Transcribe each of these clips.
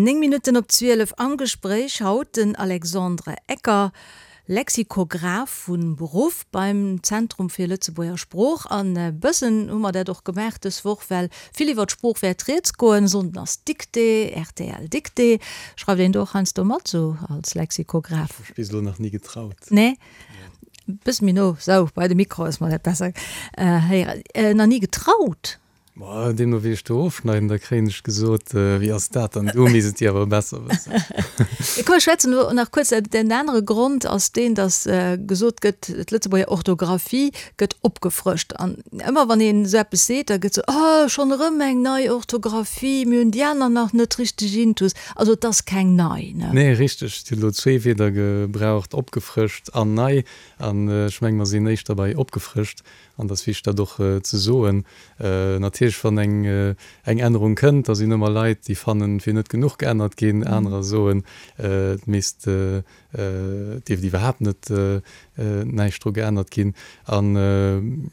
9 Minutten op 12 am Gespréich haut den Alexandre Ecker, Lexikograph vu Beruff beim Zentrum fir Lëtzebuerger Sprooch. An e bëssen hu mer dat och gemaach dës Woch, well vill iwwer d'Sprooch wäert rieds goen. Sonnden ass Dictée, rtl Dictée. Schreift een do och heiansdo mat, sou als Lexikograph? Ech hu mech bis elo nach ni getraut. Nee? Bësse méi no, sou bei de Mikro, dass mer dat besser héieren. Nach ni getraut? Ma deemno wéi ech do ofschneiden, da kréien ech gesot, Wéi ass dat dann? Du misst et dir awer besser wëssen. Komm ech schwätzen elo nach kuerz. Den anere Grond ass deen, datt gesot gëtt, d'Lëtzebuerger Orthografie gëtt opgefrëscht. An ëmmer wann een esou eppes seet, da gëtt sou, Oh, schonn erëm eng nei Orthografie, mir hunn déi aner nach net richteg intus. Also et ass keng nei, ne? Nee, richteg. Et huet elo zwee Wierder gebraucht, opgefrëscht an nei. An ech menge mer sinn éischter bei opgefrëscht. An et ass wichteg, dat och ze soen. Natierlech, wann eng eng Ännerung kënnt, da sinn ëmmer Leit, déi fannen, et wier net genuch geännert ginn. Anerer soen, et misst, et dierft iwwerhaapt net näischt dru geännert ginn. An,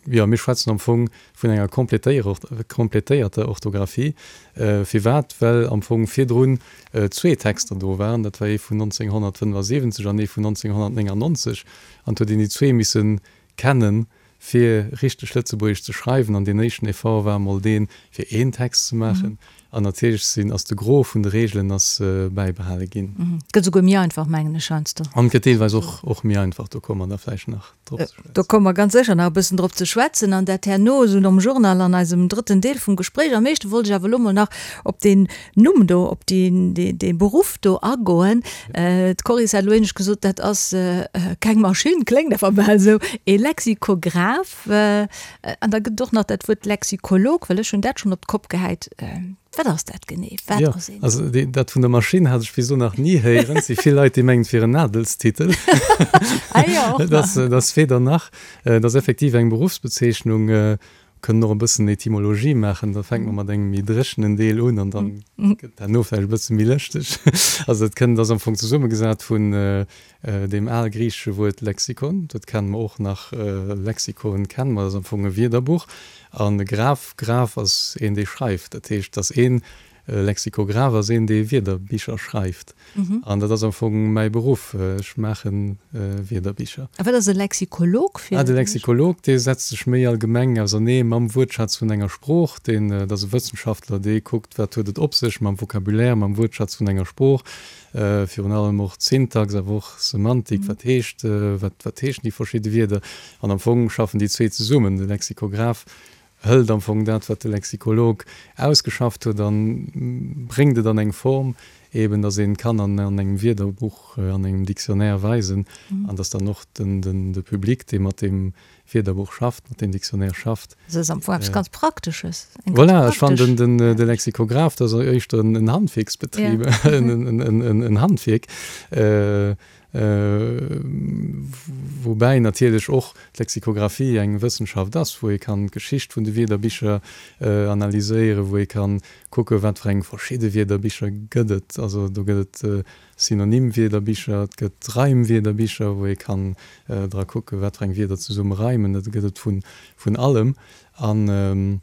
jo, mir schwätzen am Fong vun enger kompletéierter Orthografie. Firwat? Well am Fong virdrun zwee Texter do waren. Dat war ee vun 1975 an ee vun 1999. An et huet een déi zwee misse kennen, fir richteg Lëtzebuergesch ze schreiwen, an deen éischten Effort war emol deen, fir een Text ze maachen, an natierlech sinn, ass de Gros vun de Reegelen ass bäibehale ginn. Et gëtt esouguer méi einfach, mengen ech heiansdo. An et gëtt deelweis och, och méi einfach, do komme mer da vläicht nach drop ze schwätzen. Do komme mer ganz sécher nach e bëssen drop ze schwätzen, an dat herno esou nom Journal an eisem drëtten Deel vum Gespréich. Am éischte wollt ech awer elo mol nach op deen Numm do, op dee Beruff do agoen. D'Coris hat elo éinescht gesot, dat ass keng Maschinn, kléngt awer bal esou, ee Lexikograph. An da gëtt et och nach dat Wuert Lexikolog, well ech hunn dat schonn op d'Kopp gehäit. Wat ass dat genee? Wat ass een? Also dat vun der Maschinn hat ech bis elo nach ni héieren. Et si vill Leit, déi mengen, et wier en Adelstitel. Ah jo, och nach. Dat ass weder nach. Et ass effektiv eng Beruffsbezeechnung. Kënnen och e bëssen Etymologie maachen, da fänke mer mat engem méi dréchenen Deel un an dann gëtt herno vläicht e bësse méi lëschteg. Also dat kënnt, ass am Fong zesummegesat vun deem algriichesche Wuert Lexikon, dat kenne mer och nach, Lexikon kenne mer, dat ass am Fong e Wierderbuch, an Graph, Graph ass een dee schreift, dat heescht, dass een E Lexikograph ass een, dee Wierderbicher schreift. An dat ass am Fong mäi Beruff. Ech maache Wierderbicher. A wat ass e Lexikolog fir? Ah, de Lexikolog, dee setzt sech méi allgemeng ausernee mam Wuertschatz vun enger Sprooch. Deen, dat ass e Wëssenschaftler, dee kuckt, wat huet et op sech mam Vocabulaire, mam Wuertschatz vun enger Sprooch. Virun allem och d'Syntax, awer och Semantik, wat heescht, wat, wat heeschen déi verschidde Wierder. An am Fong schaffen déi zwee zesummen, de Lexikograph hëlt am Fong dat, wat de Lexikolog ausgeschafft huet, a bréngt et an eng Form, eben datt een et kann an engem Wierderbuch, an engem Dictionnaire weisen, an datt dann och de Public, dee mat deem Wierderbuch schafft, mat deem Dictionnaire schafft. Dat ass am Fong eppes ganz Praktesches. Eng ganz Voilà, ech fannen den de Lexikograph, dat ass éischter en Handwierksbetrib, en Handwierk. Woubäi natierlech och d'Lexikographie eng Wëssenschaft ass, wou ee kann d'Geschicht vun de Wierderbicher analyséieren, wou ee kann kucken, wat fir eng verschidde Wierderbicher gëtt et. Also do gëtt et Synonymwierderbicher, et gëtt Reimwierderbicher, wou ee kann dra kucken, wat fir eng Wierder zesumme reimen. Dat gëtt et vun allem. An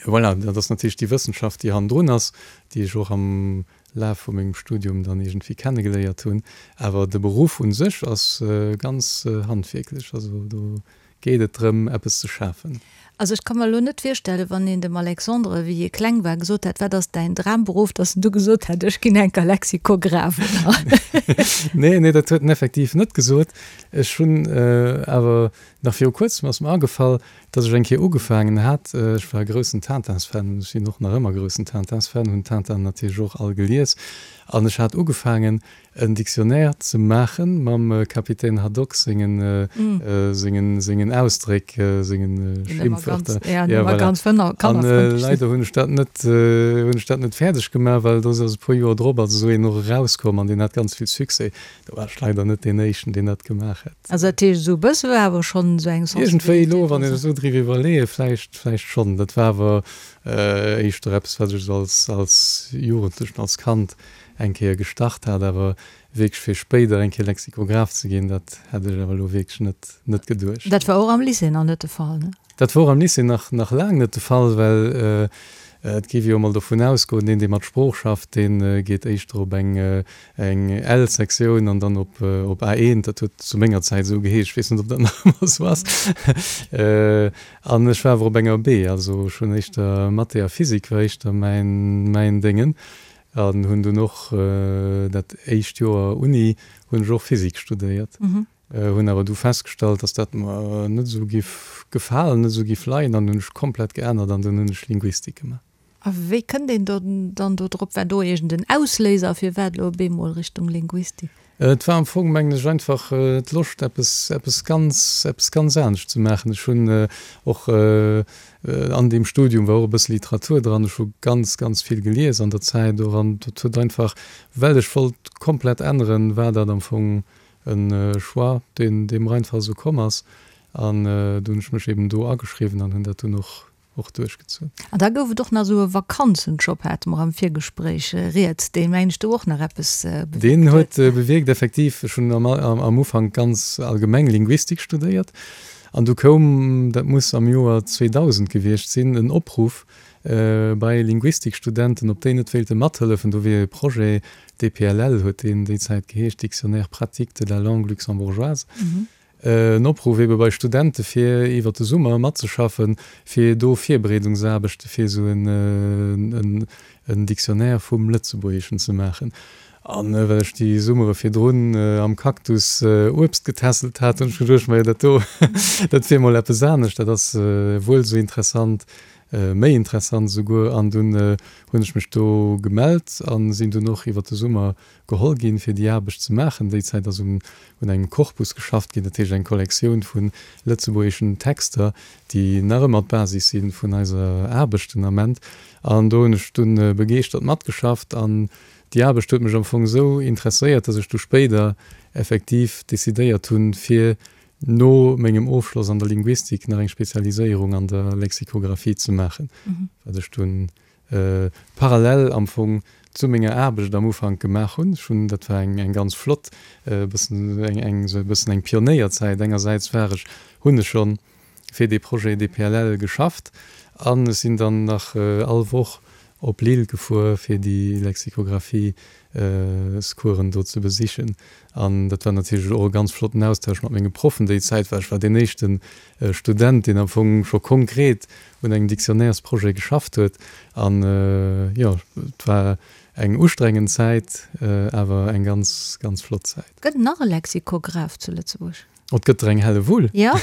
Voilà, dat ass natierlech déi Wëssenschaft, déi hannendrun ass, déi ech och am Laf vu mengem Studium dann iergendwéi kennegeléiert hunn. Awer de Beruff u sech ass ganz handwierklech. Also do geet et drëm, eppes ze schafen. Also ech ka mer elo net virstellen, wann een dem Alexandre, wéi hie kleng war, gesot hätt, wat ass däin Dramberuff, datt en du gesot hätt, ech ginn enker Lexikograph, oder? Nee, nee, dat huet en effektiv net gesot. Ech hunn awer nach viru kuerzem ass mer agefall, Dass ech eng Kéier ugefaangen hat, ech war e groussen Tintins-Fan, ech sinn och nach ëmmer groussen Tintins-Fan, hunn Tintin natierlech och all gelies, an ech hat ugefaangen en Dictionnaire ze maache mam Capitaine Haddock sengen, sengen, sengen Ausdréck, sengen Schimpfwörter. Ja, voilà. An leider hunn ech dat net, hunn ech dat net fäerdeg gemaach, well do ass e puer Joer drop ass esou een och erauskomm an deen hat ganz vill Succès. Do war ech leider net deen éischten, deen dat gemaach hat. Also dat heescht, esou e bësse war awer schonn esou eng Sensibilitéit. Iergendwéi elo, wann ech esou driwwer iwwerleeën, vläicht, vläicht schonn. Dat war awer éischter eppes, wat ech esou als, als Jugendlechen, als Kand eng Kéier gestart hat. Awer wierklech fir spéider eng Kéier Lexikograph ze ginn, dat hätt ech awer elo wierklech net, net geduecht. Dat war och am Lycée nach net de Fall, ne? Dat wor am Lycée nach, nach laang net de Fall, well. Et géif ee jo emol dovun ausgoen, deen, dee mat Sprooch schafft, dee geet éischter op eng L-Sektioun an dann op A1. Dat huet zu menger Zäit esou geheescht, ech weess net, ob dat nach ëmmer esou ass. An ech war awer op enger B, also ech hunn éischter Mathé a Physik war éischter mäin Déngen. An hunn dunn och dat éischt Joer Uni hunn ech och Physik studéiert. Hunn awer du festgestallt, dass dat mer net esou giff gefalen, net esou giff leien an hunn ech komplett geännert an dunn hunn ech Linguistik gemaach. A wéi kënnt een dann do drop? War do iergend en Ausléiser, firwat elo op eemol Richtung Linguistik? Et war am Fong, mengen ech, einfach d'Loscht eppes, eppes ganz, eppes ganz anescht ze maachen. Ech hunn och an deem Studium war och e bësse Literatur dran, ech hu ganz, ganz vill gelies an der Zäit och an dat huet einfach, well ech wollt komplett änneren, war dat am Fong E Choix, deen deem einfach esou komm ass. An du hunn ech mech eben do ageschriwwen an hunn dat dunn och och duerchgezunn. An da gouf et och nach esou e Vakanzenjob, hate mer am Virgespréich rieds, deen, mengen ech, do och nach eppes bewierkt huet. Deen huet bewierkt, effektiv. Ech hunn am Ufank ganz allgemeng Linguistik studéiert an du koum, dat muss am Joer 2000 gewiescht sinn, en Opruff bei Linguistikstudenten, ob déi net wéilte mathëllefen. Do wier e Projet DPLL huet deen déi Zäit geheescht, Dictionnaire pratique de la langue luxembourgeoise, en Opruff ebe bei Studente fir iwwer de Summer matzeschaffen, fir do Virbereedungsaarbechte fir esou en Dictionnaire vum Lëtzebuergeschen ze maachen. An well ech déi Summere virdrun am Cactus Uebst getässelt hat, hunn ech geduecht, majo dat do, dat wier mol eppes anescht, dat ass wuel esou interessant méi interessant esouguer, an dunn hunn ech mech do gemellt a sinn dunn och iwwer de Summer geholl ginn, fir déi Aarbecht ze maachen. Déi Zäit ass un engem Korpus geschafft ginn, dat heescht eng Kollektioun vu lëtzebuergeschen Texter, déi nach ëmmer d'Basis si vun eiser Aarbecht den Ament. An do hunn ech dunn begeeschtert matgeschafft an déi Aarbecht huet mech am Fong esou interesséiert, datt ech du spéider effektiv decidéiert hunn, fir no mengem Ofschloss an der Linguistik nach eng Spezialiséierung an der Lexikographie ze maachen, wat ech dunn parallel am Fong zu menger Aarbecht am Ufank gemaach hunn. Ech hunn, dat war eng eng ganz flott, e bëssen eng eng esou e bëssen eng Pionéierzäit. Engersäits war ech, hunn ech schonn fir dee Projet DPLL geschafft an ech sinn dann nach all Woch op Lille gefuer fir déi Lexikographie-scoursen do ze besichen. An dat war natierlech och e ganz flotten Austausch mat menge Proffen déi Zäit, well ech war deen éischte Student, deen am Fong scho konkret un engem Dictionnairesprojet geschafft huet. An jo, et war eng ustrengend Zäit, awer eng ganz, ganz flott Zäit. Gëtt et nach e Lexikograph zu Lëtzebuerg? Et gëtt der eng Hellewull. Jo.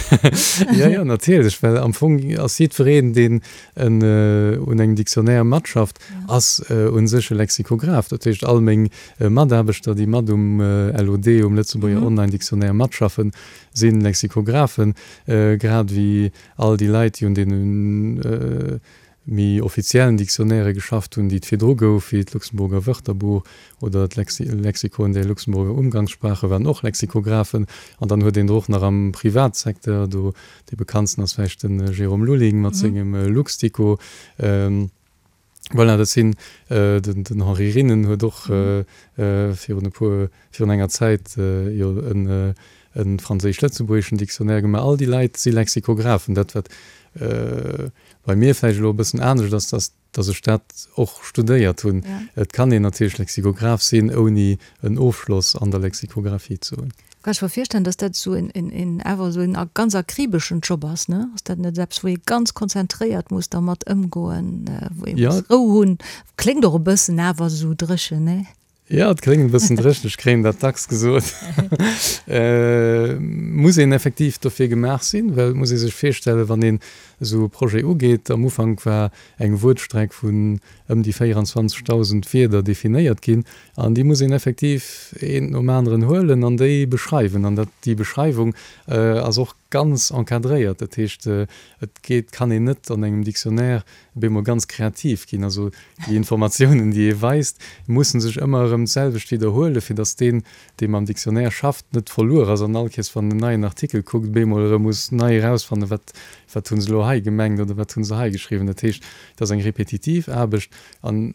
Jo, jo, natierlech, well am Fong ass jiddwereen, deen en un engem Dictionnaire matschafft, ass u sech e Lexikograph. Dat heescht, all meng Mataarbechter, déi mat um LOD, um Lëtzebuerger Online Dictionnaire matschaffen, si Lexikographen, grad ewéi all déi Leit, déi un deenen méi offiziellen Dictionnairë geschafft hunn, déi et virdru gouf, wéi d'Luxemburger Wörterbuch oder d'Lexikon der Luxemburger Umgangssprache, waren och Lexikographen. An dann huet een der och nach am Privatsecteur, do dee bekanntsten ass vläicht de Jérôme Lulling mat sengem Luxdico. Voilà, dat sinn, den Henri Rinnen huet och virun e puer, virun enger Zäit jo e franséisch-lëtzebuergeschen Dictionnaire gemaach. All déi Leit si Lexikographen. Dat wat bei mir vläicht elo e bëssen anescht ass, dass dass ech dat och studéiert hunn. Et kann een natierlech Lexikograph sinn, ouni en Ofschloss an der Lexikographie ze hunn. Kann ech mer virstellen, dass dat esou en awer esou en ganz akribeschen Job ass, ne? Ass dat net eppes, wou ee ganz konzentréiert muss dermat ëmgoen, wou ee muss Rou hunn? Kléngt och e bëssen awer esou dréchen, ne? Jo, et kléngt e bëssen dréchen, ech kréien dat dacks gesot. Muss een effektiv dofir gemaach sinn, well et muss ee sech virstellen, wann een esou e Projet ugeet, am Ufank war eng Wuertstreck vun ëm déi 24.000 Wierder definéiert ginn an déi muss een effektiv eent nom aneren huelen an déi beschreiwen. An dat, déi Beschreiwung ass och ganz encadréiert, dat heescht, et geet, kann een net an engem Dictionnaire op eemol ganz kreativ ginn. Also déi Informatiounen, déi ee weist, mussen sech ëmmer erëm d'selwecht widderhuelen, fir datt deen, dee mam Dictionnaire schafft, net verluer ass an all Kees, wann en neien Artikel kuckt, op eemol erëm muss nei erausfannen, wat, wat hu se elo hei gemengt oder wat hu se hei geschriwwen. Dat heescht, et ass eng repetitiv Aarbecht an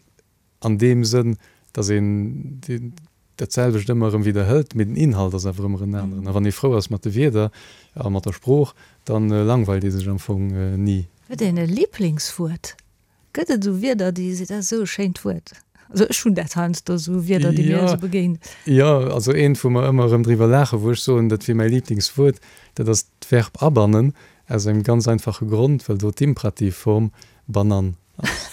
an deem Sënn, datt een dat selwecht ëmmer erëm widderhëlt, mee den Inhalt ass awer ëmmer en aneren. A wann ee frou ass mat de Wierder a mat der Sprooch, da langweilt ee sech am Fong ni. Huet een e Liblingswuert? Gëtt et esou Wierder, déi seet, dat ass esou e schéint Wuert? Also ech hunn dat heiansdo, esou Wierder, déi mir esou begéinen. Jo, also eent, wou mer ëmmer erëm driwwer laachen, wou ech soen, dat wier mäi Liblingswuert, dat ass d'Verb abannen, aus engem ganz einfache Grond, well do d'Imperativform banan ass.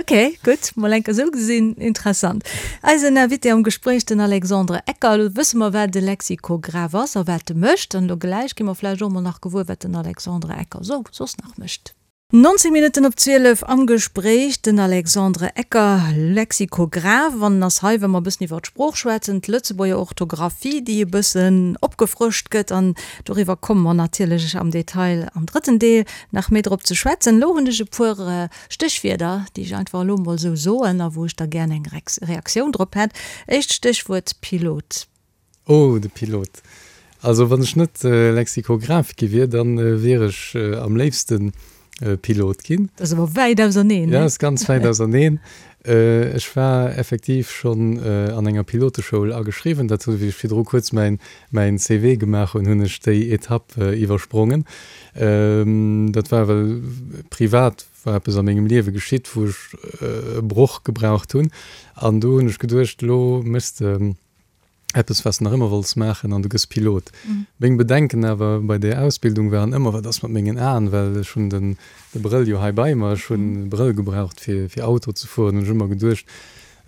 Ok, gutt, mol enker esou gesinn, interessant. Eisen Invité am Gespréich, den Alexandre Ecker. Elo wësse mer, wat e Lexikograph ass a wat e mécht. An elo gläich gi mer vläicht och mol nach gewuer, wat den Alexandre Ecker sou soss nach mécht. 19 Minutten op 12 am Gespréich den Alexandre Ecker, Lexikograph, an en ass hei, wa mer e bëssen iwwer d'Sprooch schwätzen, d'Lëtzebuerger Orthografie, déi e bëssen opgefrëscht gëtt. An doriwwer komme mer natierlech am Detail am drëtten Deel nach méi drop ze schwätzen. Elo hunn ech e puer Stéchwierder, déi ech einfach elo emol esou soen a wou ech da gär eng Reaktioun drop hätt. Éischt Stéchwuert, Pilot. Oh, de Pilot. Also wann ech net Lexikograph gi wier, dann wier ech am léifsten Pilot ginn. Dat ass awer wäit auserneen, ne? Ja, ass ganz wäit auserneen. Ech war effektiv schonn an enger Piloteschoul ageschriwwen. Dat hunn, wéi ech virdru kuerz mäin mäin CV gemaach hunn, hunn ech déi Etapp iwwersprongen. Dat war well privat war eppes a mengem Liewe geschitt, wou ech e Broch gebraucht hunn. An do hunn ech geduecht, elo méchs de eppes wat s de nach ëmmer wollts maachen an du gëss Pilot. Meng Bedenken awer bei där Ausbildung waren ëmmer, wat ass mat mengen Aen, well ech hunn den de Brëll jo hei bei mer, ech hunn e Brëll gebraucht fir fir Auto ze fueren, hunn ech ëmmer geduecht,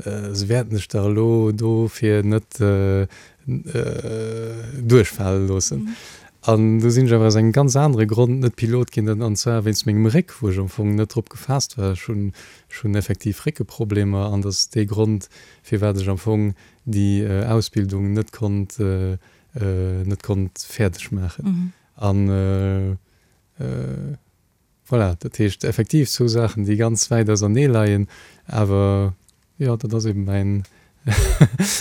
se wäerten dech dach elo dofir net duerchfale loossen. An du sinn ech awer aus engem ganz anere Grond net Pilot ginn, an zwar wéinst mengem Réck, wou ech am Fong net drop gefaasst war. Ech hunn ech hunn effektiv Réckeproblemer an dat ass dee Grond firwat ech am Fong déi Ausbildung net konnt net konnt fäerdeg maachen. An voilà, dat heescht effektiv zwou Saachen, déi ganz wäit ausernee leien, awer jo, dat ass eben mäin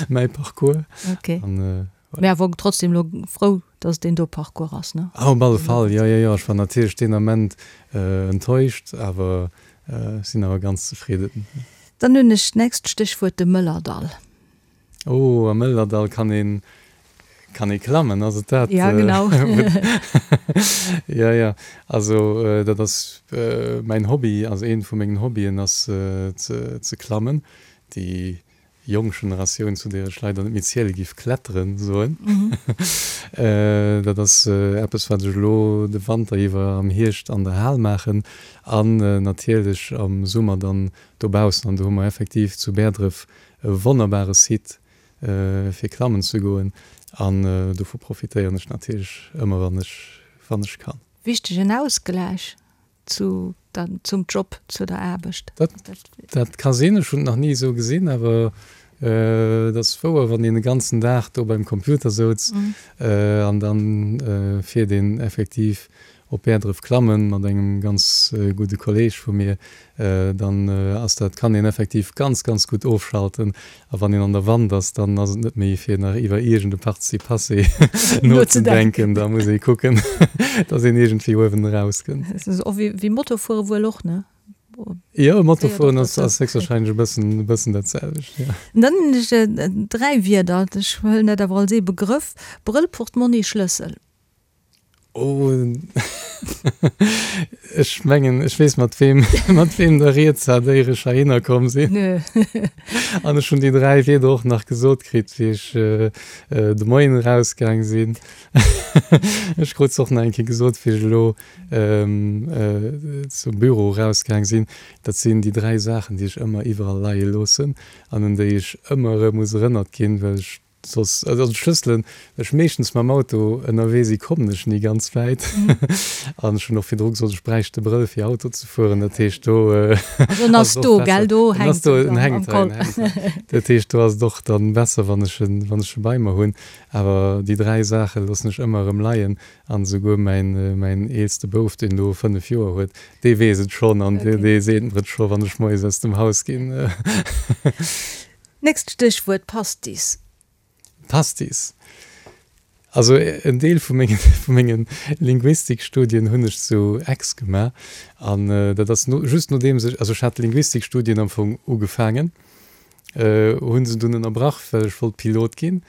mäi Parcours. Ok. An voilà. Mee awer trotzdem elo frou, dass et deen do Parcours ass, ne? Ah, op alle Fall, jo, jo, jo. Ech war natierlech deen Ament enttäuscht, awer ech sinn awer ganz zefridden. Dann hunn ech d'nächst Stéchwuert, de Mëllerdall. Oh, am Mëllerdall kann een, kann ee klammen, ass et dat? Ja, genau. Jo, jo, also dat ass mäin Hobby, also eent vu mengen Hobbyen ass ze, ze klammen. Déi jonk Generatioun, zu där ech leider net méi ziele giff, kletteren soen. Dat ass eppes, wat ech elo de Wanter iwwer am Hierscht an der Hal maachen an natierlech am Summer dann dobaussen. An do hu mer effektiv zu Bäerdref e wonnerbare Site fir klammen ze goen an dovu profitéieren ech natierlech ëmmer wann ech wann ech kann. Wichtegen Ausgläich zu der, zum Job, zu der Aarbecht. Dat, dat ka sinn, ech hunn et nach ni esou gesinn, awer et ass wouer, wann een e ganzen Dag do beim Computer souz an dann fiert een effektiv op Bäerdref klammen mat engem ganz gudde Kolleg vu mir, dann ass dat, kann een effektiv ganz, ganz gutt ofschalten. A wann een an der Wand ass, dann ass et net méi fir nach iwwer iergend e Participe passé nozedenken, da muss ee kucken, dass een iergendwéi uewen erauskënnt. Dat ass och wéi Motofuere wuel och, ne? Jo, Motofueren ass héchstwahrscheinlech e bëssen, e bëssen dat selwecht, jo. Dann hunn ech 3 Wierder, ech huelen dat awer als ee Begrëff, Brëll, Portmonni, Schlëssel. Oh, ech mengen, ech weess mat weem, mat weem der rieds hat, éier ech heihinner komm sinn. An ech hunn déi 3 Wierder och nach gesot kritt, wéi ech de Moien erausgaang sinn. Ech krut se och nach eng Kéier gesot, wéi ech elo zum Büro erausgaang sinn. Dat sinn déi 3 Saachen, déi ech ëmmer iwwerall leie loossen an un déi ech ëmmer erëm muss erënnert ginn, well ech Soss, also d'Schlësselen, well ech meeschtens mam Auto ënnerwee si, kommen ech ni ganz wäit. An ech hunn och virdru gesot, ech bräicht de Brëll fir Auto ze fueren. Dat heescht do Also en ass do, gell? Do hänkt en am Col. Dat heescht do ass et och dann besser, wann ech en, wann ech e bei mer hunn. Awer déi 3 Saache loossen ech ëmmer erëm leien. An esouguer mäin, mäin eelste Bouf, deen elo 5 Joer huet, dee weess et schonn an dee seet mer et scho wann ech moies aus dem Haus ginn. Nächst Stéchwuert, Pastis. Pastis. Also en Deel vu mengen, vu mengen Linguistikstudien hunn ech zu Aix gemaach an dat ass no, just nodeems ech, also ech hat Linguistikstudien am Fong ugefaangen, hunn se dunn ënnerbrach, well ech wollt Pilot ginn.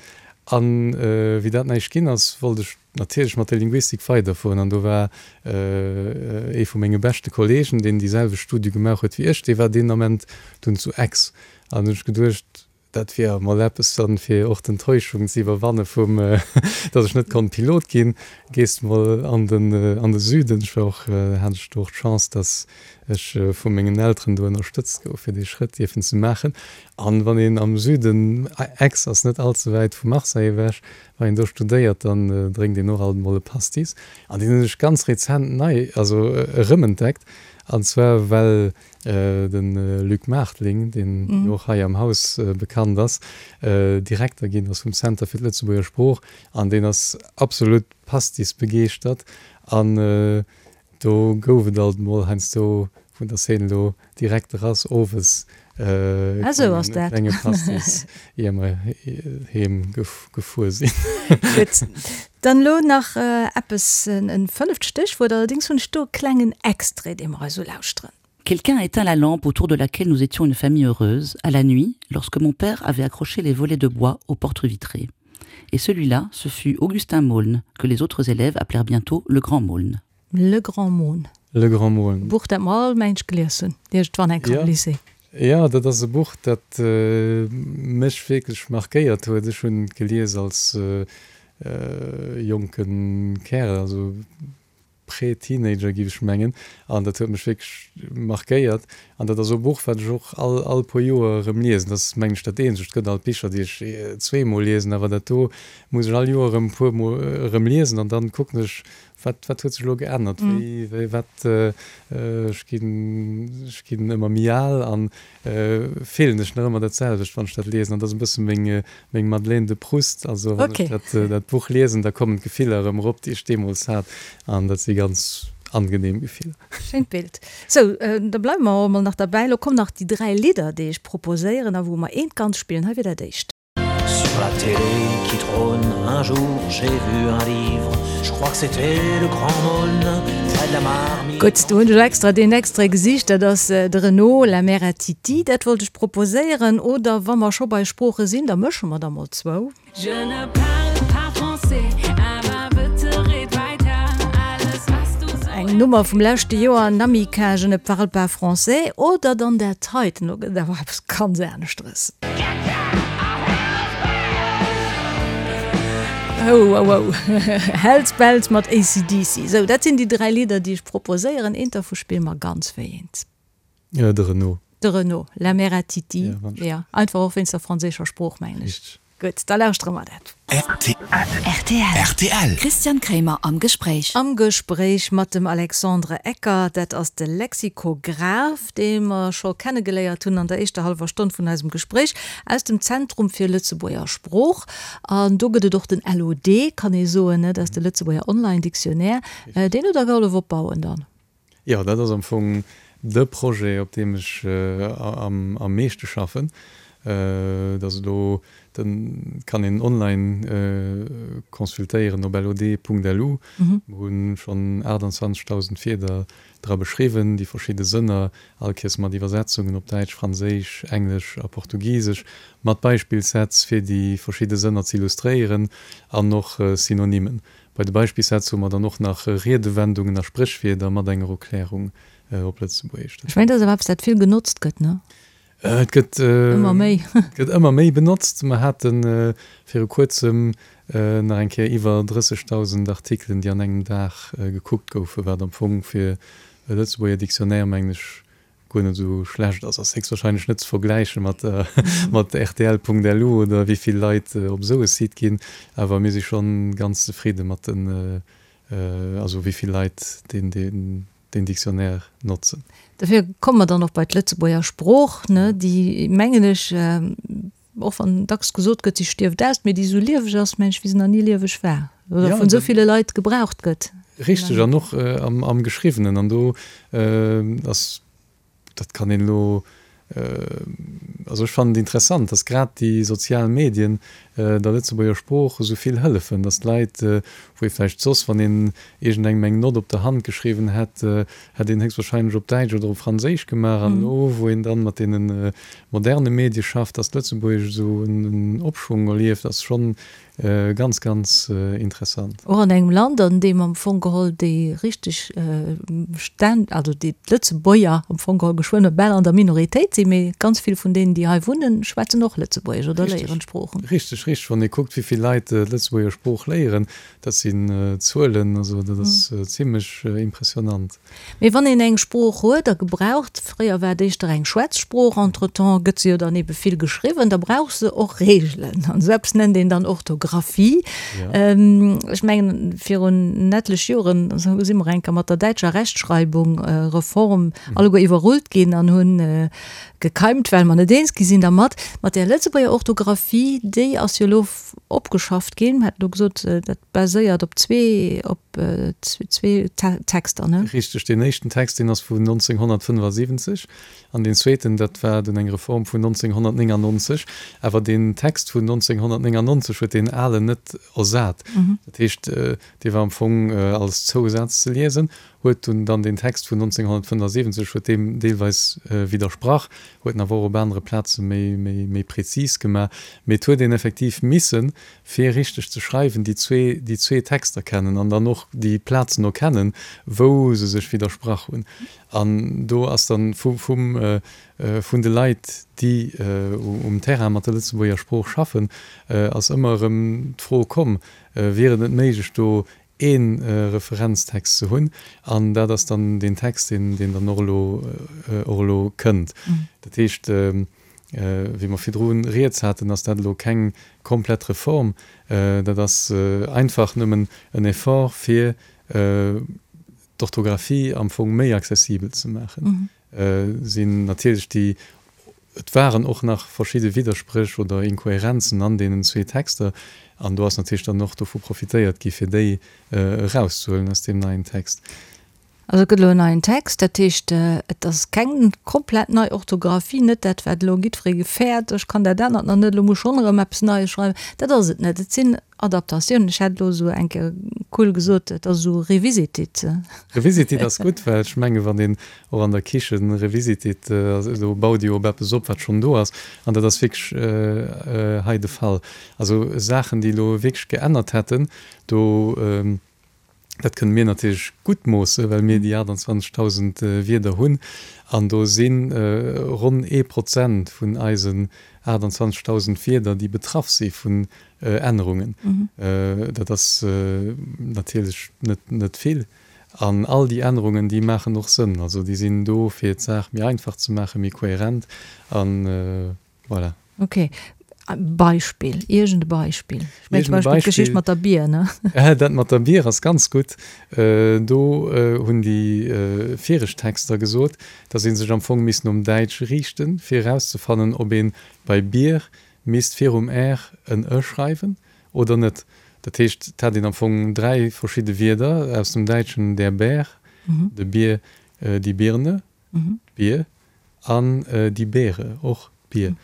An wéi dat näischt ginn ass, wollt ech natierlech mat der Linguistik weiderfueren. An do war ee vu menge beschte Kollegen, deen déi selwecht Studie gemaach huet wéi ech, dee war deen Ament dunn zu Aix. An hunn ech geduecht, dat wier emol eppes dann, fir och d'Enttäuschung ze iwwerwanne vum, datt ech net konnt Pilot ginn, gees de mol an den, an de Süden. Ech war och, hat ech do och d'Chance, datt ech vu mengen Elteren do ënnerstëtzt gouf, fir dee Schrëtt dierfen ze maachen. An wann een am Süden, Aix ass net all ze wäit vu Marseille ewech, wann een do studéiert, dann drénkt een och alt emol e Pastis. An deen hunn ech ganz rezent nei, also erëmentdeckt. An zwar well de Luc Maartling, deen jo och hei am Haus bekannt ass, Direkter ginn ass vum Center fir d'Lëtzebuerger Sprooch. An deen ass absolut Pastis-begeeschtert. An Do gouf et alt mol heiansdo vun der Szene elo direkt erass owes e klenge Pastis ier mer heem gefuer sinn. Gutt, dann elo nach eppes, en fënneft Stéchwuert, allerdéngs hunn ech do e klengen Extrait, dee mer eis ulauschteren. Quelqu'un a éteint la lampe autour de laquelle nous étions une famille heureuse, à la nuit, lorsque mon père avait accroché les volets de bois aux portes vitrées. Et celui-là, ce fut Augustin Maulne, que les autres élèves appelèrent bientôt le grand Maulne. Le Grand Maulne. Le Grand Maulne. E Buch, dat mer all mensch gelies hunn, iergendwann eng Kéier am Lycée. Jo, dat ass e Buch, dat mech wierklech markéiert huet. Ech hunn et gelies als jonke Kärel, also Prä-Teenager, géif ech mengen. An dat huet mech wierklech markéiert. An dat ass e Buch, wat ech och all, all puer Joer erëm liesen. Dat ass, mengen ech, dat eenzegt. Et gëtt alt Bicher, déi ech zweemol liesen, awer dat do muss ech all Joer erëm e puer Mol erëm liesen. An dann kucken ech, Wat, wat huet sech elo geännert? Wéi, wéi, wat, ech ginn, ech ginn ëmmer méi al an fillen ech nach ëmmer dat selwecht, wann ech dat liesen. An dat ass e bësse meng, meng Madeleine de Proust. Also wann ech dat, dat Buch liesen, da kommen d'Gefiller erëm erop, déi ech deemools hat. An dat si ganz angenehm Gefiller. Schéint Bild. Sou, da bleiwe mer och emol nach derbäi. Elo kommen nach déi 3 Lidder, déi ech proposéieren a wou mer eent ganz spillen. Hei wier dat éischt. Sur la télé qui trône un jour j'ai vu un livre je crois que c'était le grand Maulne près de la marmite. Gutt, do hunn ech extra deen Extrait gesicht, dat ass de Renaud, La mère à Titi, dat wollt ech proposéieren. Oder wa mer scho bei Sprooche sinn, da mësche mer der mol zwou. Je ne parle pas français, awer bitte red weiter, alles was du so Eng Nummer vum leschte Joer, Namika, Je ne parle pas français. Oder dann dat heiten, elo gëtt et awer eppes ganz aneschteres. Oh, oh, oh. Hells Bells mat AC/DC. Sou, dat sinn déi 3 Lidder, déi ech proposéieren. Eent dervu spille mer ganz. Wéi eent? De Renaud. De Renaud, La mère à Titi. Ja, wann Ja, einfach och wéinst der franséischer Sprooch, mengen ech. Richteg. Gutt, da lauschtere mer dat. Rtl. Rtl. Christian Kremer am Gespréich. Am Gespréich mat dem Alexandre Ecker, dat ass de Lexikograph, dee mer scho kennegeléiert hunn an der éischter hallwer Stonn vun eisem Gespréich, aus dem Zentrum fir Lëtzebuerger Sprooch. An do gëtt et och den LOD, kann ee soen, ne, dat ass de Lëtzebuerger Online Dictionnaire. Deen hutt Der gehollef opbauen dann? Jo, dat ass am Fong de Projet, op deem ech am meeschte schaffen. Dat ass elo, den kann een online consultéieren op lod.lu. Mer hu schonn 28.000 Wierder dra beschriwwen, déi verschidde Sënner, all Kéiers mat Iwwersetzungen op Däitsch, Franséisch, Englesch a Portugisesch, mat Beispillssätz, fir déi verschidde Sënner ze illustréieren an och Synonymen. Bei de Beispillssätz hu mer dann och nach Riedewendungen a Spréchwierder mat enger Erklärung op Lëtzebuergesch. Ech mengen, dat ass awer eppes, dat vill genotzt gëtt, ne? Et gëtt ëmmer méi. Et gëtt ëmmer méi benotzt. Mer hate viru kuerzem nach eng Kéier iwwer 30.000 Artikelen, déi an engem Dag gekuckt goufen, wat am Fong fir e Lëtzebuerger Dictionnaire, mengen ech, guer net esou schlecht ass, ass héchstwahrscheinlech net ze vergläiche mat mat rtl.lu oder wéi vill Leit op esou e Site ginn, awer mir si schonn ganz zefridde mat den, also wéi vill Leit deen deen deen Dictionnaire notzen. Dofir komme mer dann och bei d'Lëtzebuerger Sprooch, ne, déi, mengen ech, Och wann dacks gesot gëtt, si stierft aus, mee déi esou lieweg ass, mengen ech, wéi se nach ni lieweg war oder vun esou ville Leit gebraucht gëtt. Richteg, an och am Geschriwwenen. An do ass, dat kann een elo. Also ech fannen et interessant, datt grad déi sozial Medien der Lëtzebuerger Sprooch esou vill hëllefen, datt d'Leit, wou ee vläicht soss, wann een iergendengem eng Nott op der Hand geschriwwen hätt, hätt een héchstwahrscheinlech op Däitsch oder op Franséisch gemaach. An elo, wou een dann mat deene moderne Medie schafft, datt d'Lëtzebuergesch esou en Opschwong erlieft, ass schonn Ganz, ganz interessant. Och an engem Land, an deem am Fong geholl déi richteg Stänn, also déi d'Lëtzebuerger am Fong geholl geschwënn bal an der Minoritéit sinn, mee ganz vill vun deenen, déi hei wunnen, schwätzen och Lëtzebuergesch oder léieren d'Sproochen. Richteg, richteg. Wann ee kuckt, wéi vill Leit d'Lëtzebuerger Sprooch léieren, dat sinn Zuelen, also dat ass zimlech impressionant. Mee wann een eng Sprooch huet a gebraucht, fréier war et éischter eng Schwätzsprooch, entretemps gëtt se jo dann ebe vill geschriwwen, da brauch se och Reegelen. An esou eppes nennt een dann Orthographie. Ech mengen, virun etlech Joren si mer eng Kéier mat der däitscher Rechtschreibung, Reform alleguer iwwerrullt ginn an hunn gekeimt, well mer net eens gi sinn dermat. Mat där Lëtzebuerger Orthographie, déi ass jo elo opgeschafft ginn. Mer haten elo gesot, dat baséiert op zwee, op zwee Texter, ne? Richteg, deen éischten Text, deen ass vun 1975 an deen zweeten, dat war dunn eng Reform vun 1999. Awer deen Text vun 1999 huet deen alen net ersat. Dat heescht, dee war am Fong als Zousaz ze liesen, huet dunn dann deen Text vun 1975 huet deem deelweis widdersprach, huet en awer och op anere Plaze méi, méi, méi prezis gemaach. Mee et huet een effektiv missen, fir richteg ze schreiwen, déi zwee, déi zwee Texter kennen an dann och déi Plazen erkennen, wou se sech widdersprach hunn. An do ass dann vu, vum, vun de Leit, déi um Terrain mat der Lëtzebuerger Sprooch schaffen, ass ëmmer erëm d'Fro komm, Wier et net méiglech, do ee Referenztext ze hunn, an dat ass dann deen Text, deen, deen dann och elo, och elo kënnt. Dat heescht, wéi mer virdru rieds haten, ass dat elo keng komplett Reform, dat ass einfach nëmmen en Effort, fir d'Orthografie am Fong méi accessibel ze maachen. Sinn natierlech déi, et waren och nach verschidde Widderspréch oder Inkohärenzen an deenen zwee Texter, an do ass natierlech dann och dovu profitéiert gi fir déi erauszehuelen aus deem neien Text. Also et gëtt elo en neien Text, dat heescht, et ass keng komplett nei Orthografie, net dat wat elo jiddweree gefäert, ech kann dat anert nach net, elo muss ech schonn erëm eppes Neies schreiwen, dat ass et net. Et sinn Adaptatioun, ech hätt elo esou eng Kéier cool gesot, et ass esou revisited. Revisited ass gutt, well ech menge wann een och an der Kichen revisited, do baut ee jo op eppes op, wat schonn do ass. An dat ass wierklech hei de Fall. Also Saachen, déi elo wierklech geännert hätten, do, Dat kënne mir natierlech gutt moossen, well mir déi 28.000 Wierder hunn. An do si ronn ee Prozent vun eisen 28.000 Wierder, déi betraff si vun Ännerungen. Dat ass natierlech net vill. An all déi Ännerungen, déi maachen och Sënn. Also déi sinn do, fir d'Saach méi einfach ze maachen, méi kohärent. An Voilà. Ok. Beispill, iergend e Beispill. Ech mengen zum Beispill d'Geschicht mat der Bier, ne? Dat mat der Bier ass ganz gutt. Do hunn déi viregt Texter gesot, datt ee sech am Fong misst nom Däitsch riichten, fir erauszefannen, ob ee bei Bier misst virum r en e schreiwen oder net. Dat heescht, et hat een am Fong 3 verschidde Wierder aus dem Däitschen, der Bär, de Bier, die Birne, d'Bier, an die Beere, och d'Bier.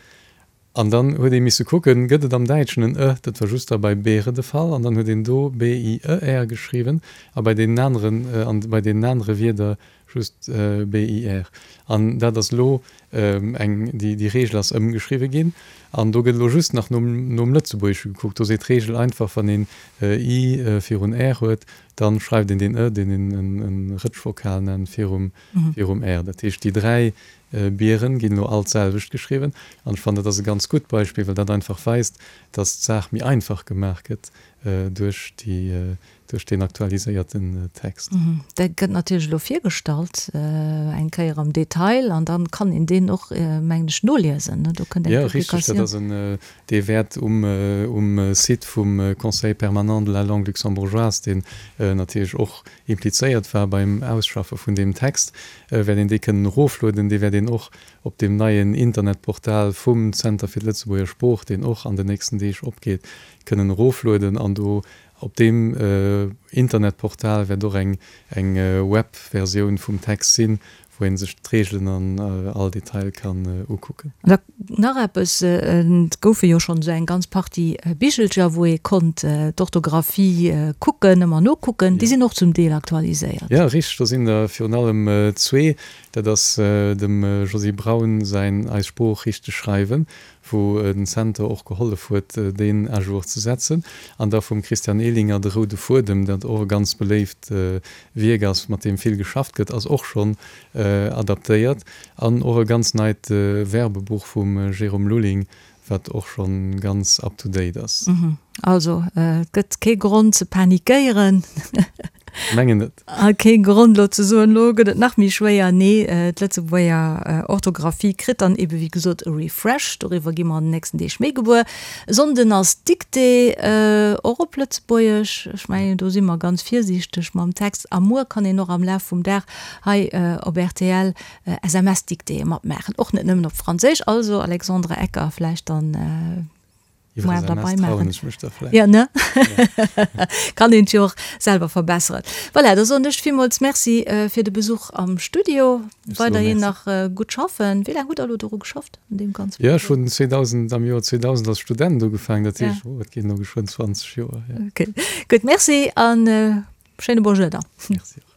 An dann huet ee misse kucken, gëtt et am Däitschen en e, dat war just da bei Beere de Fall, an dann huet een do B-I-E-R geschriwwen a bei deenen aneren, an bei deenen anere Wierder just B-I-R. An dat ass elo eng, déi, déi Reegel ass ëmgeschriwwe ginn an do gëtt elo just nach nom, nom Lëtzebuergesche gekuckt. Do seet d'Reegel einfach, wann een I virun R huet, dann schreift een deen e, deen een en Rëtschvokal nennt, virum, virum R. Dat heescht, déi 3 Bieren ginn elo all d'selwecht geschriwwen. An ech fannen, dat ass e ganz gutt Beispill, well dat einfach weist, dass d'Saach méi einfach gemaach gëtt duerch déi, duerch deen aktualiséierten Text. Dat gëtt natierlech elo virgestallt, eng Kéier am Detail, an dann kann een deen och, mengen ech, noliesen, ne? Do kënnt eng Publikatioun. Jo, richteg, dat ass en, Dee wäert um Site vum Conseil permanent de la langue luxembourgeoise, deen natierlech och implizéiert war beim Ausschaffe vun deem Text, wäert een dee kënnen eroflueden. Dee wäert een och op deem neien Internetportal vum Zenter fir d'Lëtzebuerger Sprooch, deen och an den nächsten Deeg opgeet, kënnen eroflueden. An do op deem Internetportal wäert och eng Webversioun vum Text sinn, wou. wou ee sech d'Reegelen an all Detail kann ukucken. An da nach eppes, Et goufe jo schonn esou eng ganz Partie Bichelcher, wou ee konnt d'Orthografie kucken, ëmmer nokucken. Déi sinn och zum Deel aktualiséiert. Jo, richteg. Do sinn der virun allem zwee. Dat ass dem Josy Braun säin Eis Sprooch richteg schreiwen, wou den Center och gehollef huet, deen à jour ze setzen, an da vum Christian Ehlinger De roude Fuedem, dat och e ganz beléift Wierk ass, mat deem vill geschafft gëtt, ass och schonn adaptéiert, an och e ganz neit Verbebuch vum Jérôme Lulling, wat och schonn ganz up to date ass. Also, et gëtt kee Grond ze panikéieren. Mengen net. A kee Grond elo ze soen, elo gëtt et nach méi schwéier. Nee, d'Lëtzebuerger Orthografie kritt dann ebe wéi gesot e Refresh. Doriwwer gi mer an den nächsten Deeg méi gewuer. E Sonnden ass d'Dictée, och op Lëtzebuergesch. Ech mengen, do si mer ganz virsiichteg mam Text. A muer kann een och am Laf vum Dag hei op rtl SMS-Dictéeë matmaachen, och net nëmmen op Franséisch. Also Alexandre Ecker, vläicht dann Iwwer SMS trauen ech mech da vläicht. Ja, ne? Kann een jo och selwer verbesseren. Voilà, da soen ech villmools Merci fir de Besuch am Studio. Weiderhin nach gutt schaffen. Wéi laang hutt Der elo doru geschafft, un deem ganze Projet? Jo, ech hunn 2000, am Joer 2000 als Student ugefaangen, dat heescht, oh, et ginn elo geschwënn 20 Joer, jo. Okay, gutt, Merci an schéine Bonjour dann. Merci och.